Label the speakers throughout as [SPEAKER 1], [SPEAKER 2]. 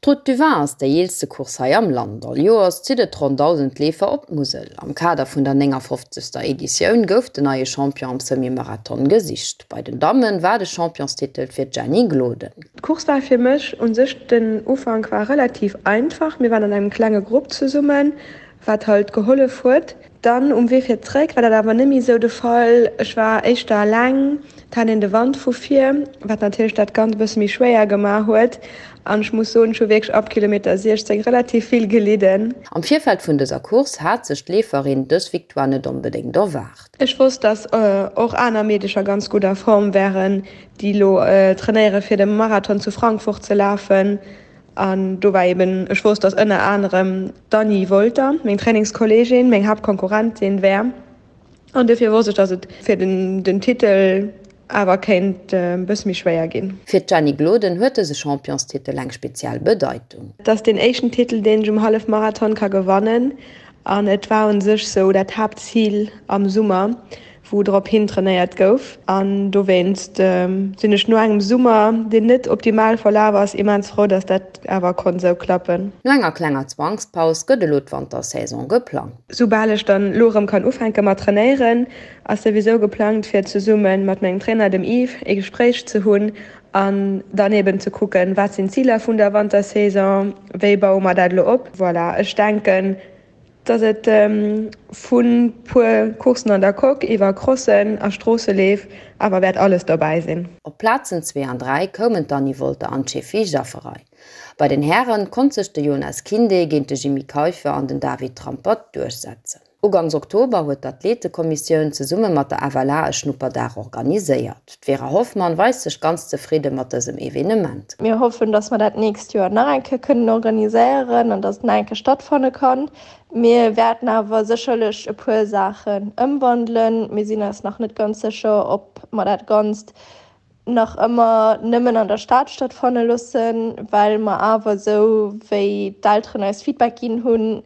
[SPEAKER 1] D'Route du Vin ass déi eelste Course hei am Land. All Joers zitt et ronn 1.000 Leefer op d'Musel. Am Kader vun der 59. Editioun gouf den neie Champion am Semi-Marathon gesicht. Bei den Damme war de Championstitel fir d'Jenny Gloden.
[SPEAKER 2] D'Course war fir mech un sech, den Ufank war relativ einfach. Mir waren an engem klenge Grupp zesummen, wat halt gehollef huet. Dann um Wee fir zréck war dat awer net méi esou de Fall. Ech war éischter eleng, et hat een de Wand vu vir, wat natierlech dat Ganzt e bësse méi schwéier gemaach huet. An ech muss soen, ech hu wierklech ab Kilometer 16 relativ vill gelidden.
[SPEAKER 1] Am Virfeld vun dëser Course hat sech d'Leeferin dës Victoire net onbedéngt erwaart.
[SPEAKER 2] Ech wosst, dass och aner Meedecher ganz gutt a Form wären, déi elo trainéiere fir de Marathon zu Frankfurt ze lafen. An do war eben, ech wosst, dass ënner anerem d'Anny Wolter, meng Trainingskolleegin, meng Haaptkonkurrentin wär. An dofir wosst ech, dass et fir den Titel awer kéint e bësse méi schwéier ginn.
[SPEAKER 1] Fir d'Jenny Gloden huet dëse Championstitel eng speziell Bedeitung.
[SPEAKER 2] Et ass deen éischten Titel, deen ech um Hallefmarathon ka gewannen. An et war u sech sou dat Haaptzil am Summer, wou drop hin trainéiert gouf. An dowéinst sinn ech no engem Summer, deen net optimal verlaf ass, immens frou, dass dat awer konnt esou klappen.
[SPEAKER 1] No enger klenger Zwangspaus gëtt elo d'Wantersaison geplangt.
[SPEAKER 2] Soubal ech dann elo erëm kann ufänke mat trainéieren, ass souwisou geplangt fir zesumme mat mengem Trainer, dem Yves, ee Gespréich ze hunn an dann eben ze kucken, wat sinn d'Ziler vun der Wantersaison, wéi baue mer dat elo op. Voilà, ech denken, Dass et vu puer Courssen an der Coque iwwer Crossen a Stroosseleef awer wäert alles dobäi sinn.
[SPEAKER 1] Op d'Plazen 2 an 3 koumen d'Anny Wolter an d'Shefi Jafferaj. Bei den Hären konnt sech de Jonas Kinde géint de Jimmy Keiffer an den David Trampert duerchsetzen. Ugangs Oktober huet d'Athletekommissioun zesumme mat der FLA e Schnupperdag organiséiert. D'Vera Hoffmann weist sech ganz zefridde mat dësem Evenement.
[SPEAKER 2] Mir hoffen, dass mer dat nächst Joer nach eng Kéier kënnen organiséieren an dass et nach eng Kéier stattfanne kann. Mir wäerten awer sécherlech e puer Saachen ëmwandelen. Mir sinn eis nach net ganz sécher, ob mer dat Ganzt nach ëmmer nëmmen an der Stad stattfanne loossen, well mer awer, esou wéi d'Elteren eis Feedback ginn hunn,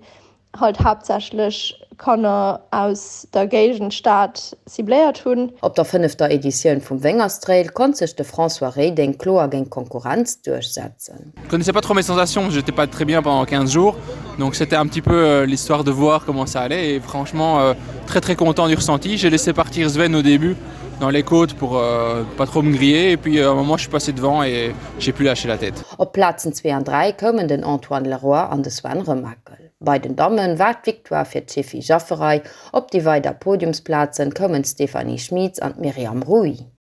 [SPEAKER 2] halt haaptsächlech Kanner aus der Géigend Stad cibléiert hunn.
[SPEAKER 1] Op der fënnefter Editioun vum Wéngerstrail konnt sech de François Reding kloer géint d'Konkurrenz duerchsetzen.
[SPEAKER 3] Je connaissais pas trop mes sensations, j'étais pas très bien pendant 15 jours, donc c'était un petit peu euh, l'histoire de voir comment ça allait et franchement euh, très très content du ressenti. J'ai laissé partir Sven au début dans les côtes pour euh, pas trop me griller et puis euh, à un moment je suis passé devant et j'ai pu lâcher la tête.
[SPEAKER 1] Op Plazen 2 an 3 koumen den Antoine Leroy an de Sven Remakel. Bei den Damme war d'Victoire fir d'Shefi Jafferaj, op déi weider Podiumsplazen koumen d'Stéphanie Schmitz an d'Myriam Rouy.